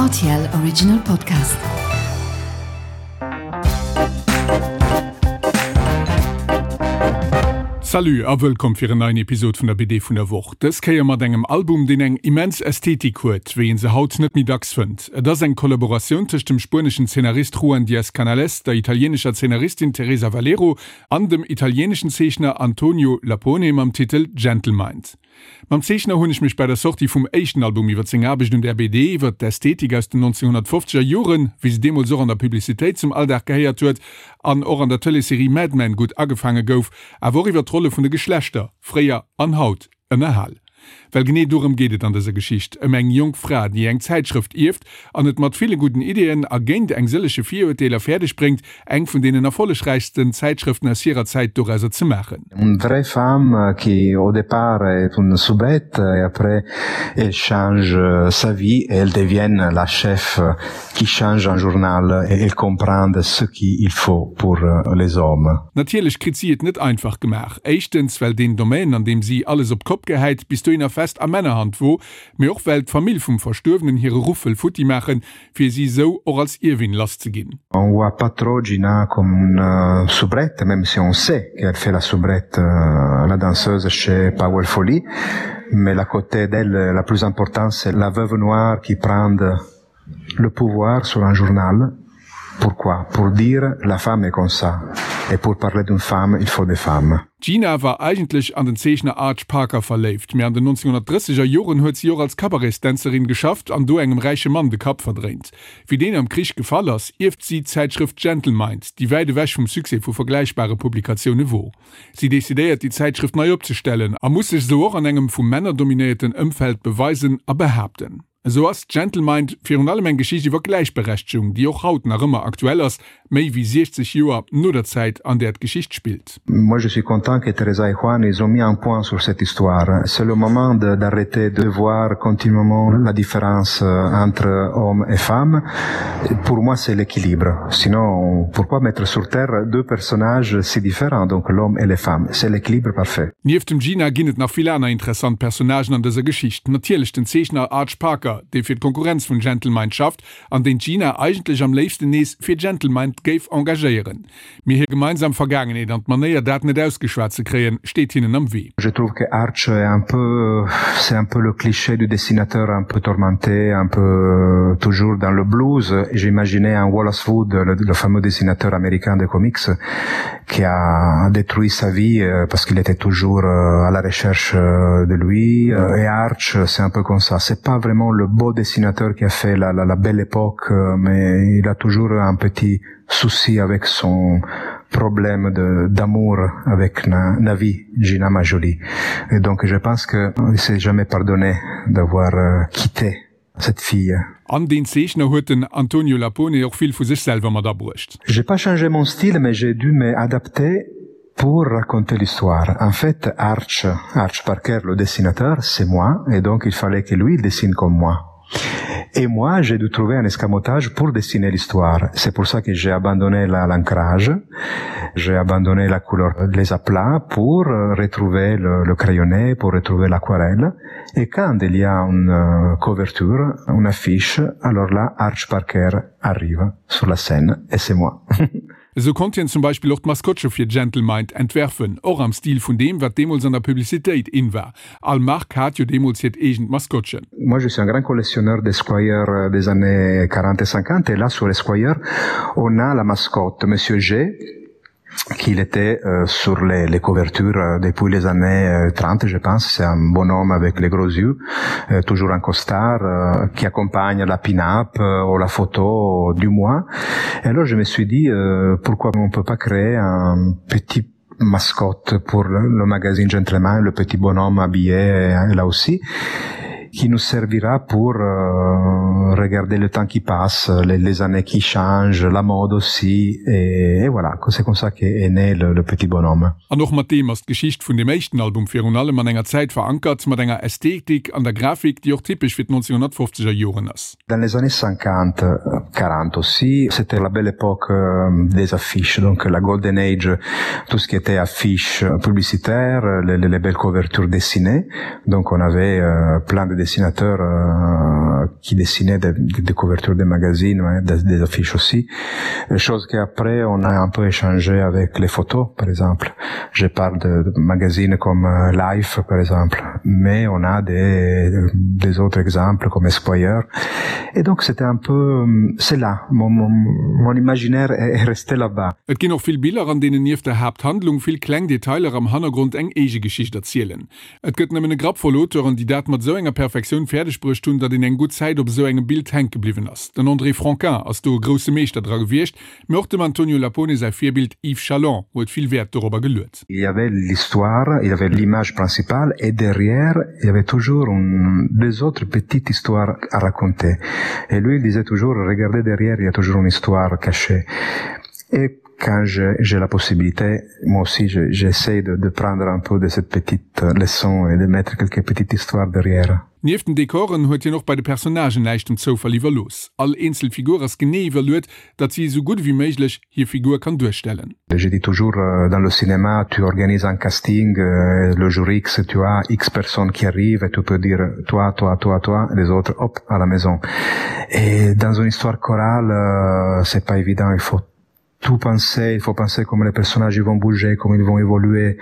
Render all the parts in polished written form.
RTL Original Podcast. Salut a wëllkomm fir en neien Episod vun der BD vun der Woch. Dës Kéier mat engem Album, deen eng immens Ästhetik huet, wéi een se haut net méi dacks fënnt. Et ass eng Kollaboratioun tëscht dem spueneschen Zeenarist Juan Diaz Canales, der italieenescher Zeenaristin Teresa Valero an dem italieeneschen Zeechner Antonio Lapone mam Titel Gentlemind. Mam Zeechner hunn ech mech bei der Sortie vum éischten Album iwwer seng Aarbecht un där BD, iwwer d'Ästhetik aus den 1950er Joren, wéi se deemools och an der Publicitéit zum Alldag gehéiert huet an och an der Tëleesserie Mad Men gutt agefaange gouf, awer och iwwer d'Rolle vun de Geschlechter, fréier an haut, ënnerhal. Well genee dorëm geet et an dëser Geschicht, ëm eng jonk Fra, déi eng Zäitschrëft ierft an et mat ville gudden Ideeën a géint eng sëllege Virurteeler fäerdeg bréngt, eng vun deenen erfollegräichsten Zäitschrëften aus hirer Zäit dorauser ze maachen. Une vraie femme qui au départ est une soubrette et après elle change sa vie et elle devient la chef qui change un journal et elle comprend ce qu'il faut pour les hommes. Natierlech kritt si et net einfach gemaach. Éischtens well deen Domaine an deem si alles op d'Kopp gehäit bis dohinner fest a Männerhand wor, mee och well d'Famill vum Verstuerwenen hire Ruff wëll futti maachen, fir si esou och als Ierwin lass ze ginn. On voit pas trop Gina comme une soubrette, même si on sait qu'elle fait la soubrette, la danseuse chez Powell Folly, mais la côté d'elle la plus importante c'est la veuve noire qui prend le pouvoir sur un journal, pourquoi? Pour dire la femme est comme ça et pour parler d'une femme il faut des femmes. D'Gina war eigentlech an den Zeechner Arch Parker verléift, mee an den 1930er Joren huet si och als Cabaretsdänzerin geschafft an do engem räiche Mann de Kapp verdréint. Wéi deen am Krich gefall ass, ierft si d'Zäitschrëft Gentlemind, déi wäit ewech vum Succès vu vergläichbare Publikatioune wor. Si decidéiert, déi Zäitschrëft nei opzestellen a muss sech esou och an engem vu Männer dominéierten Ëmfeld beweisen a behaapten. Esou ass Gentlemind virun allem eng Geschicht iwwer Gläichberechtegung, déi och haut nach ëmmer aktuell ass, méi wéi 60 Joer no der Zäit, an där d'Geschicht spillt. Moi je suis content que Teresa et Juan ils ont mis un point sur cette histoire. C'est le moment d'arrêter de voir continuellement la différence entre hommes et femmes. Pour moi c'est l'équilibre. Sinon pourquoi mettre sur terre deux personnages si différents, donc l'homme et les femmes. C'est l'équilibre parfait. Nieft dem Gina ginn et nach vill aner interessant Personnagen an dëser Geschicht. Natierlech den Zeechner Arch Parker, dee fir d'Konkurrenz vun Gentlemind schafft an deen d'Gina eigentlech am léifsten nees fir Gentlemind géif engagéieren. Mee hir gemeinsam Vergaangenheet an d'Manéier dat net ausgeschwat ze kréien, steet hinnen am Wee. Je trouve que Arch est un peu, c'est un peu le cliché du dessinateur un peu tourmenté, un peu toujours dans le blues. J'imaginais un Wallace Wood, le, le fameux dessinateur américain de comics, qui a détruit sa vie euh, parce qu'il était toujours euh, à la recherche euh, de lui et Arch c'est un peu comme ça c'est pas vraiment le beau dessinateur qui a fait la, la, la belle époque mais il a toujours un petit souci avec son problème d'amour avec na, Navi Gina Majoli et donc je pense que il s'est jamais pardonné d'avoir quitté cette fille. An deen Zeechner huet den Antonio Lapone och vill vu sech selwer mat abruecht. J'ai pas changé mon style mais j'ai dû m'adapter pour raconter l'histoire. En fait, Arch, Arch Parker, le dessinateur, c'est moi et donc il fallait que lui il dessine comme moi. Et moi, j'ai dû trouver un escamotage pour dessiner l'histoire. C'est pour ça que j'ai abandonné l'ancrage, j'ai abandonné la couleur, les aplats pour retrouver le, le crayonné, pour retrouver l'aquarelle. Et quand il y a une euh, couverture, une affiche, alors là, Arch Parker arrive sur la scène et c'est moi. Esou konnt hien zum Beispill och d'Maskottche fir Gentlemind entwerfen, och am Stil vun deem, wat deemools an der Publicitéit in war. All Mark hat jo deemools hiert eegent Maskottchen. Moi je suis un grand collectionneur d'Esquire des années 40 et 50 et là sur Esquire on a la mascotte Monsieur G qu'il était euh, sur les, les couvertures euh, depuis les années 30 euh, je pense c'est un bonhomme avec les gros yeux euh, toujours un costard euh, qui accompagne la pin-up euh, ou la photo du mois et alors je me suis dit euh, pourquoi on peut pas créer un petit mascotte pour le, le magazine gentleman le petit bonhomme habillé euh, là aussi et qui nous servira pour euh, regarder le temps qui passe, les, les années qui changent, la mode aussi et, et voilà, c'est comme ça qu'est né le, le petit bonhomme. An och mat deem ass d'Geschicht vun dem éischten Album virun allem an enger Zäit verankert, mat enger Ästhetik an der Grafik, déi och typesch fir d'1950er Joren ass. Dans les années 50, 40 aussi, c'était la belle époque euh, des affiches, donc la golden age, tout ce qui était affiches publicitaires, les, les belles couvertures dessinées. Donc on avait euh, plein de dessinateurs euh, qui dessinaient des, des, des couvertures des magazines, ouais, des, des affiches aussi. Chose qu'après on a un peu échangé avec les photos, par exemple. Je parle de, de magazines comme euh, Life, par exemple, mais on a des, des autres exemples comme Esquire. Et donc c'était un peu c'est là mon, mon, mon imaginaire est resté là-bas. Et ginn och vill Biller, an deenen nieft der Haapthandlung vill kleng Detailer am Hannergrond eng eege Geschicht erzielen. Et gëtt nëmmen e Grapp voll Auteuren, déi dat mat esou enger Perfektioun fäerdeg bruecht hunn, datt een eng gutt Zäit op esou engem Bild hänke bliwwen ass. Den André Franquin ass do e grousse Meeschter dra gewiescht, mee och dem Antonio Lapone säi Virbild Yves Chaland huet vill Wäert dorobber geluet. Il y avait l'histoire, il y avait l'image principale et derrière il y avait toujours une, des autres petites histoires à raconter. Et lui il disait toujours regardez derrière, il y a toujours une histoire cachée. Et quand j'ai la possibilité, moi aussi j'essaie de, de prendre un peu de cette petite leçon et de mettre quelques petites histoires derrière. Nieft den Dekoren huet hien och bei de Personnagen näischt dem Zoufall iwwerlooss. All eenzel Figur ass genee iwwerluet, datt si esou gutt ewéi méiglech hir Figur kann duerstellen. Je dis toujours euh, dans le cinéma, tu organises un casting, euh, le jour X, tu as X personnes qui arrivent et tu peux dire toi, toi, toi, toi, les autres, hop, à la maison. Et dans une histoire chorale, euh, c'est pas évident, il faut tout penser, il faut penser comment les personnages vont bouger, comment ils vont évoluer.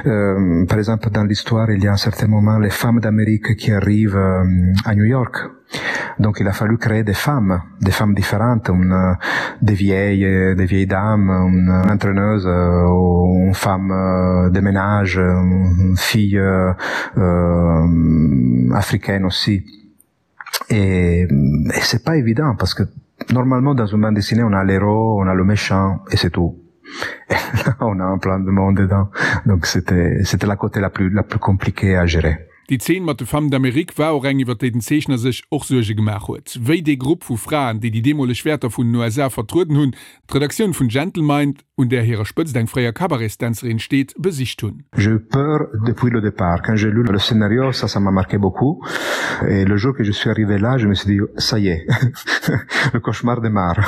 Euh, par exemple, dans l'histoire, il y a un certain moment les femmes d'Amérique qui arrivent euh, à New York. Donc il a fallu créer des femmes, des femmes différentes, une, euh, des vieilles, des vieilles dames, une entraîneuse, euh, une femme euh, de ménage, une fille euh, euh, africaine aussi. Et, et c'est pas évident parce que normalement dans une bande dessinée on a l'héros, on a le méchant et c'est tout. Et là, on a un plein de monde dedans. Donc c'était c'était la côté la plus la plus compliquée à gérer. Déi Zeen mat de Femmes d'Amérique war och eng, iwwer déi den Zeechner sech och Suerge gemaach huet. Wéi dee Grupp vu Fraen, déi déi deemoleg Wäerter vun den USA vertrueden hunn, d'Redaktioun vun Gentlemind, un där hirer Spëtzt eng fréier Cabaretsdänzerin steet, besicht hunn. J'ai eu peur depuis le départ. Quand j'ai lu le scénario, ça, ça m'a marqué beaucoup. Et le jour que je suis arrivé là, je me suis dit, ça y est, le cauchemar démarre.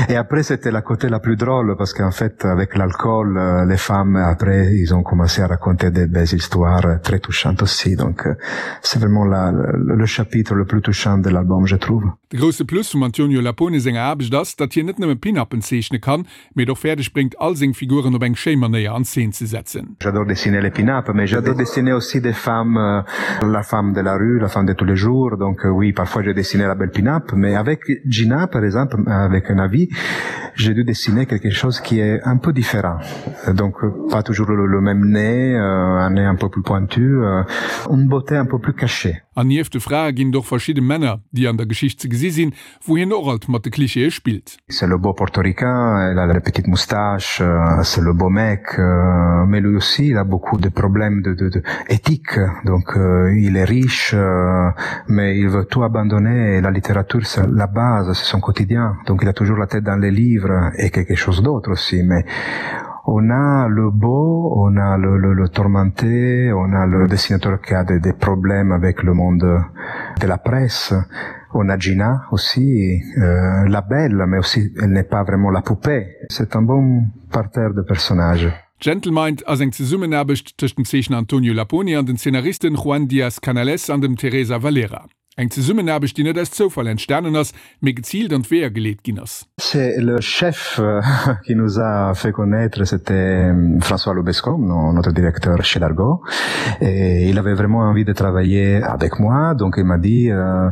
Et après, c'était la côté la plus drôle, parce qu'en fait, avec l'alcool, euh, les femmes, après, ils ont commencé à raconter des belles histoires très touchantes aussi. Donc, euh, c'est vraiment la, le, le chapitre le plus touchant de l'album, je trouve. De grousse Plus vum Antonio Lapone senger Aarbecht ass, datt hien net nëmme Pin-Uppen zeechne kann, mee et och fäerdeg bréngt, all seng Figuren op eng schéi Manéier an Zeen ze setzen. J'adore dessiner les pin-up, mais j'adore dessiner aussi des femmes, euh, la femme de la rue, la femme de tous les jours. Donc euh, oui, parfois j'ai dessiné la belle pin-up, mais avec Gina, par exemple, avec un avis, j'ai dû dessiner quelque chose qui est un peu différent. Donc pas toujours le, le même nez, euh, un nez un peu plus pointu, euh, une beauté un peu plus cachée. An nieft de Frae ginn et och verschidde Männer, déi an der Geschicht ze gesi sinn, wou hien och alt mat de Klischeeë spillt. C'est le beau portoricain, il a la petite moustache, c'est le beau mec, mais lui aussi il a beaucoup de problèmes de, de, de éthique, donc il est riche, mais il veut tout abandonner et la littérature c'est la base, c'est son quotidien, donc il a toujours la tête dans les livres et quelque chose d'autre aussi, mais on a le beau, on a le, le, le tourmenté, on a le dessinateur qui a des, des problèmes avec le monde de la presse, on a Gina aussi, euh, la belle, mais aussi elle n'est pas vraiment la poupée. C'est un bon parterre de personnages. Gentlemind ass eng Zesummenaarbecht tëscht dem Zeechner Antonio Lapone an den Zeenaristen Juan Diaz Canales an dem Teresa Valera. Eng Zesummenaarbecht, déi net aus Zoufall entstanen ass, mee geziilt an d'Weeër geleet ginn ass. C'est le chef euh, qui nous a fait connaître, c'était euh, François Lobesco, notre directeur chez Dargo. Et il avait vraiment envie de travailler avec moi, donc il m'a dit euh,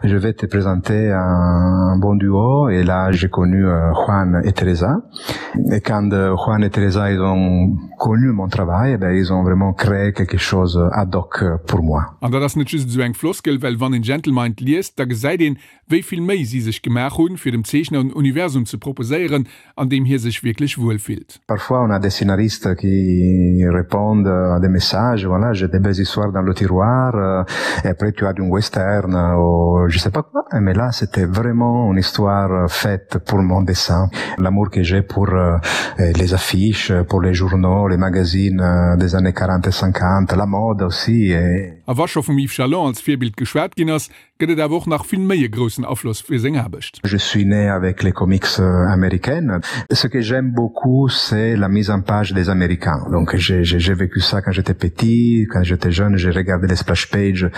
je vais te présenter un bon duo. Et là, j'ai connu euh, Juan et Teresa. Et quand euh, Juan et Teresa ils ont connu mon travail, eh ben, ils ont vraiment créé quelque chose ad hoc pour moi. An dat ass net just esou eng Floskel, well wann een Gentlemind liest, da gesäit een, wéi vill Méi si sech gemaach hunn, fir dem Zeechner en Universum ze proposéieren, an deem hie sech wierklech wuel fillt. Parfois on a des scénaristes qui répondent à des messages, voilà, j'ai des belles histoires dans le tiroir, euh, et après tu as d'un western ou je sais pas quoi, mais là c'était vraiment une histoire faite pour mon dessin, l'amour que j'ai pour euh, les affiches, pour les journaux, les magazines euh, des années 40 et 50, la mode aussi. Et... A wa scho vum Yves Chalon als Virbild geschwat ginn ass, gëtt et awer och nach vill méi e groussen Afloss fir seng Aarbecht. Je suis né avec les comics américaines. Ce que j'aime beaucoup, c'est la mise en page des Américains. Donc j'ai vécu ça quand j'étais petit, quand j'étais jeune, j'ai regardé les splash pages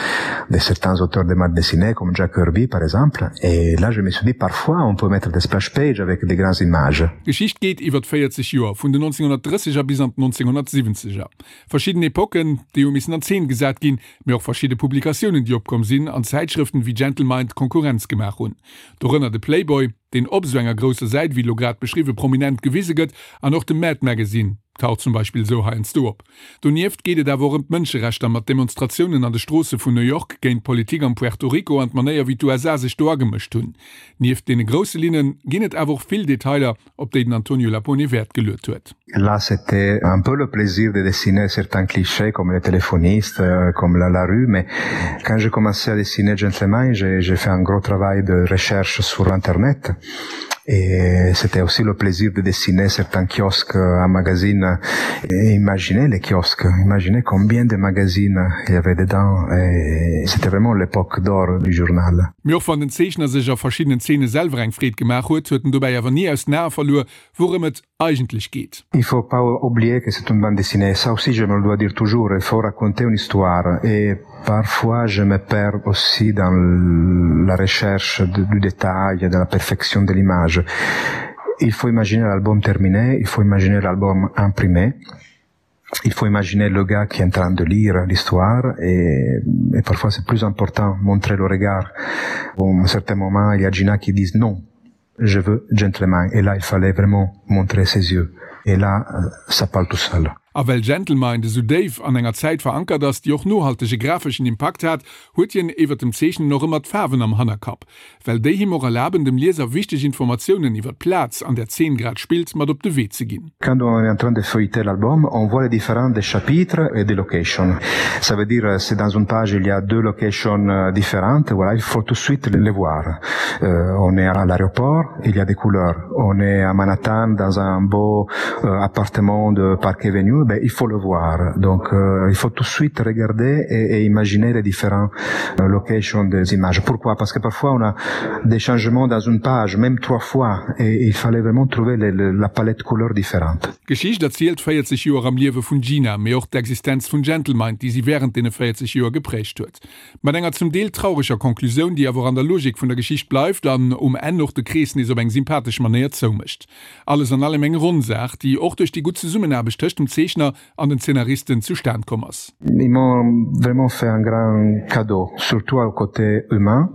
de certains auteurs de bande dessinée comme Jack Kirby par exemple. Et là je me suis dit parfois on peut mettre des splash pages avec des grandes images. D'Geschicht geet iwwert 40 Joer, vun den 1930er bis an d'1970er. Verschidden Epocken, déi hu missen an Zeen gesat ginn, mee och verschidde Publikatiounen, déi opkomm sinn an Zäitschrëften wéi Gentlemind Konkurrenz gemaach hunn. Dorënner de Playboy, deen op esou enger grousser Säit, wéi elo grad beschriwwen, prominent gewise gëtt, an och de Mad Magazine taucht zum Beispill esou heiansdo op. Donieft geet et awer och ëm d'Mënscherechter mat Demonstratiounen an de Stroosse vun New York géint d'Politik am Puerto Rico an d'Manéier wéi d'USA sech do agemëscht hunn. Nieft deene grousse Linne ginn et awer och vill Detailer, op déi den Antonio Lapone Wäert geluet huet. Là c'était un peu le plaisir de dessiner certains clichés comme les téléphonistes, comme la, la rue, mais quand j'ai commencé à dessiner Gentleman, j'ai fait un gros travail de recherche sur internet et c'était aussi le plaisir de dessiner certains kiosques à magazine et imaginer les kiosques, imaginer combien de magazines il y avait dedans et c'était vraiment l'époque d'or du journal. Mee och wann den Zeechner sech a verschiddenen Zeene selwer eng Freed gemaach huet, huet en dobäi awer ni aus den Ae verluer, wourëm et eigentlech geet. Il faut pas oublier que c'est une bande dessinée, ça aussi je me le dois dire toujours, il faut raconter une histoire et parfois je me perds aussi dans la recherche du détail, de la perfection de l'image. Il faut imaginer l'album terminé, il faut imaginer l'album imprimé. Il faut imaginer le gars qui est en train de lire l'histoire et, et parfois c'est plus important montrer le regard. Bon, à un certain moment, il y a Gina qui dit non, je veux gentleman et là il fallait vraiment montrer ses yeux et là euh, ça parle tout seul. A well Gentlemind esou déif an enger Zäit verankert ass, déi och nohaltege grafeschen Impakt hat, huet hien iwwer dem Zeechnen och ëmmer d'Faarwen am Hannerkapp, well déi him och erlaben, dem Lieser wichteg Informatiounen iwwer d'Plaz, an där d'Zeen grad spillt, mat op de Wee ze ginn. Quand on est en train de feuilleter l'album, on voit les différents des chapitres et des locations. Ça veut dire si dans une page il y a deux locations différentes, voilà, il faut tout de suite les voir. Euh, on est à l'aéroport, il y a des couleurs. On est à Manhattan dans un beau euh, appartement de Park Avenue, ben, il faut le voir. Donc euh, il faut tout de suite regarder et, et imaginer les différents euh, locations des images. Pourquoi? Parce que parfois on a des changements dans une page, même trois fois, et il fallait vraiment trouver les, les, la palette couleur différente. D'Geschicht erzielt 40 Joer am Liewe vun Gina, mee och d'Existenz vun Gentlemind, déi si wärend deene 40 Joer geprägt huet. Mat enger zum Deel traureger Conclusioun, déi awer och an der Logik vun der Geschicht bleift an um Enn och de Krees nees op eng sympathesch Manéier zoumécht. Alles an allem eng ronn Saach, déi och duerch déi gutt Zesummenaarbecht tëscht dem Zeechner an den Zeenaristen zustan komm ass. Ils m'ont vraiment fait un grand cadeau, surtout au côté humain,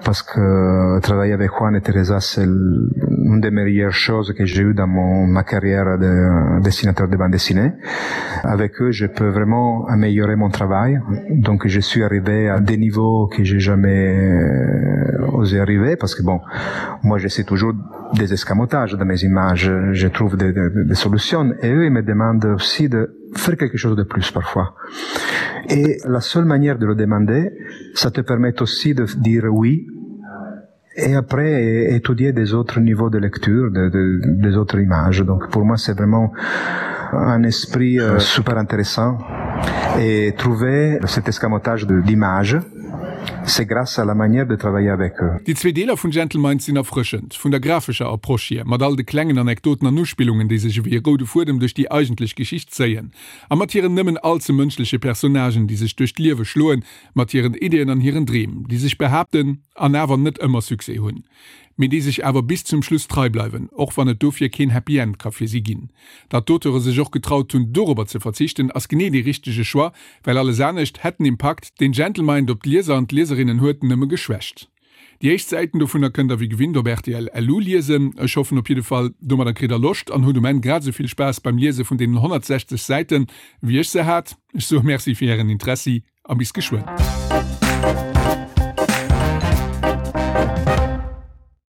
parce que travailler avec Juan et Teresa c'est une des meilleures choses que j'ai eu dans mon ma carrière de dessinateur de bande dessinée. Avec eux, je peux vraiment améliorer mon travail. Donc je suis arrivé à des niveaux que j'ai jamais euh, osé arriver parce que bon, moi j'essaie toujours des escamotages dans mes images, je trouve des, des, des solutions et eux ils me demandent aussi de faire quelque chose de plus parfois. Et la seule manière de le demander, ça te permet aussi de dire oui et après étudier des autres niveaux de lecture, de, de, des autres images. Donc pour moi c'est vraiment un esprit euh, super intéressant et trouver cet escamotage d'images, c'est grâce à la manière de travailler avec eux. Déi zwee Deeler vun Gentlemind sinn erfrëschend, vun der grafescher Approche hier, mat all de klengen Anekdoten an Uspillungen, déi sech ewéi e roude Fuedem duerch déi eigentlech Geschicht zéien, a mat hiren nëmmen all ze mënschleche Personnagen, déi sech duerch d'Liewe schloen, mat hiren Ideeën an hiren Dreem, déi sech behaapten an awer net ëmmer Succès hunn, mee déi sech awer bis zum Schluss trei bleiwen, och wann et dofir keen Happy End ka fir si ginn. Datt d'Auteure sech och getraut hunn, dorobber ze verzichten, ass genee dee richtege Choix, well alles anescht hätt den Impakt, deen Gentlemind op d'Lieser an d'Lieserinnen huet, nëmme geschwächt. Déi éischt Säiten dovunner kënnt der wéi gewinnt op rtl LU liesen. Ech hoffen op jidde Fall, domadder kritt der Loscht an hutt um Enn grad esou vill Spaass beim Liese vun deenen 160 Säiten, wéi ech se hat. Ech soe Merci fir ären Interessi a bis geschwënn.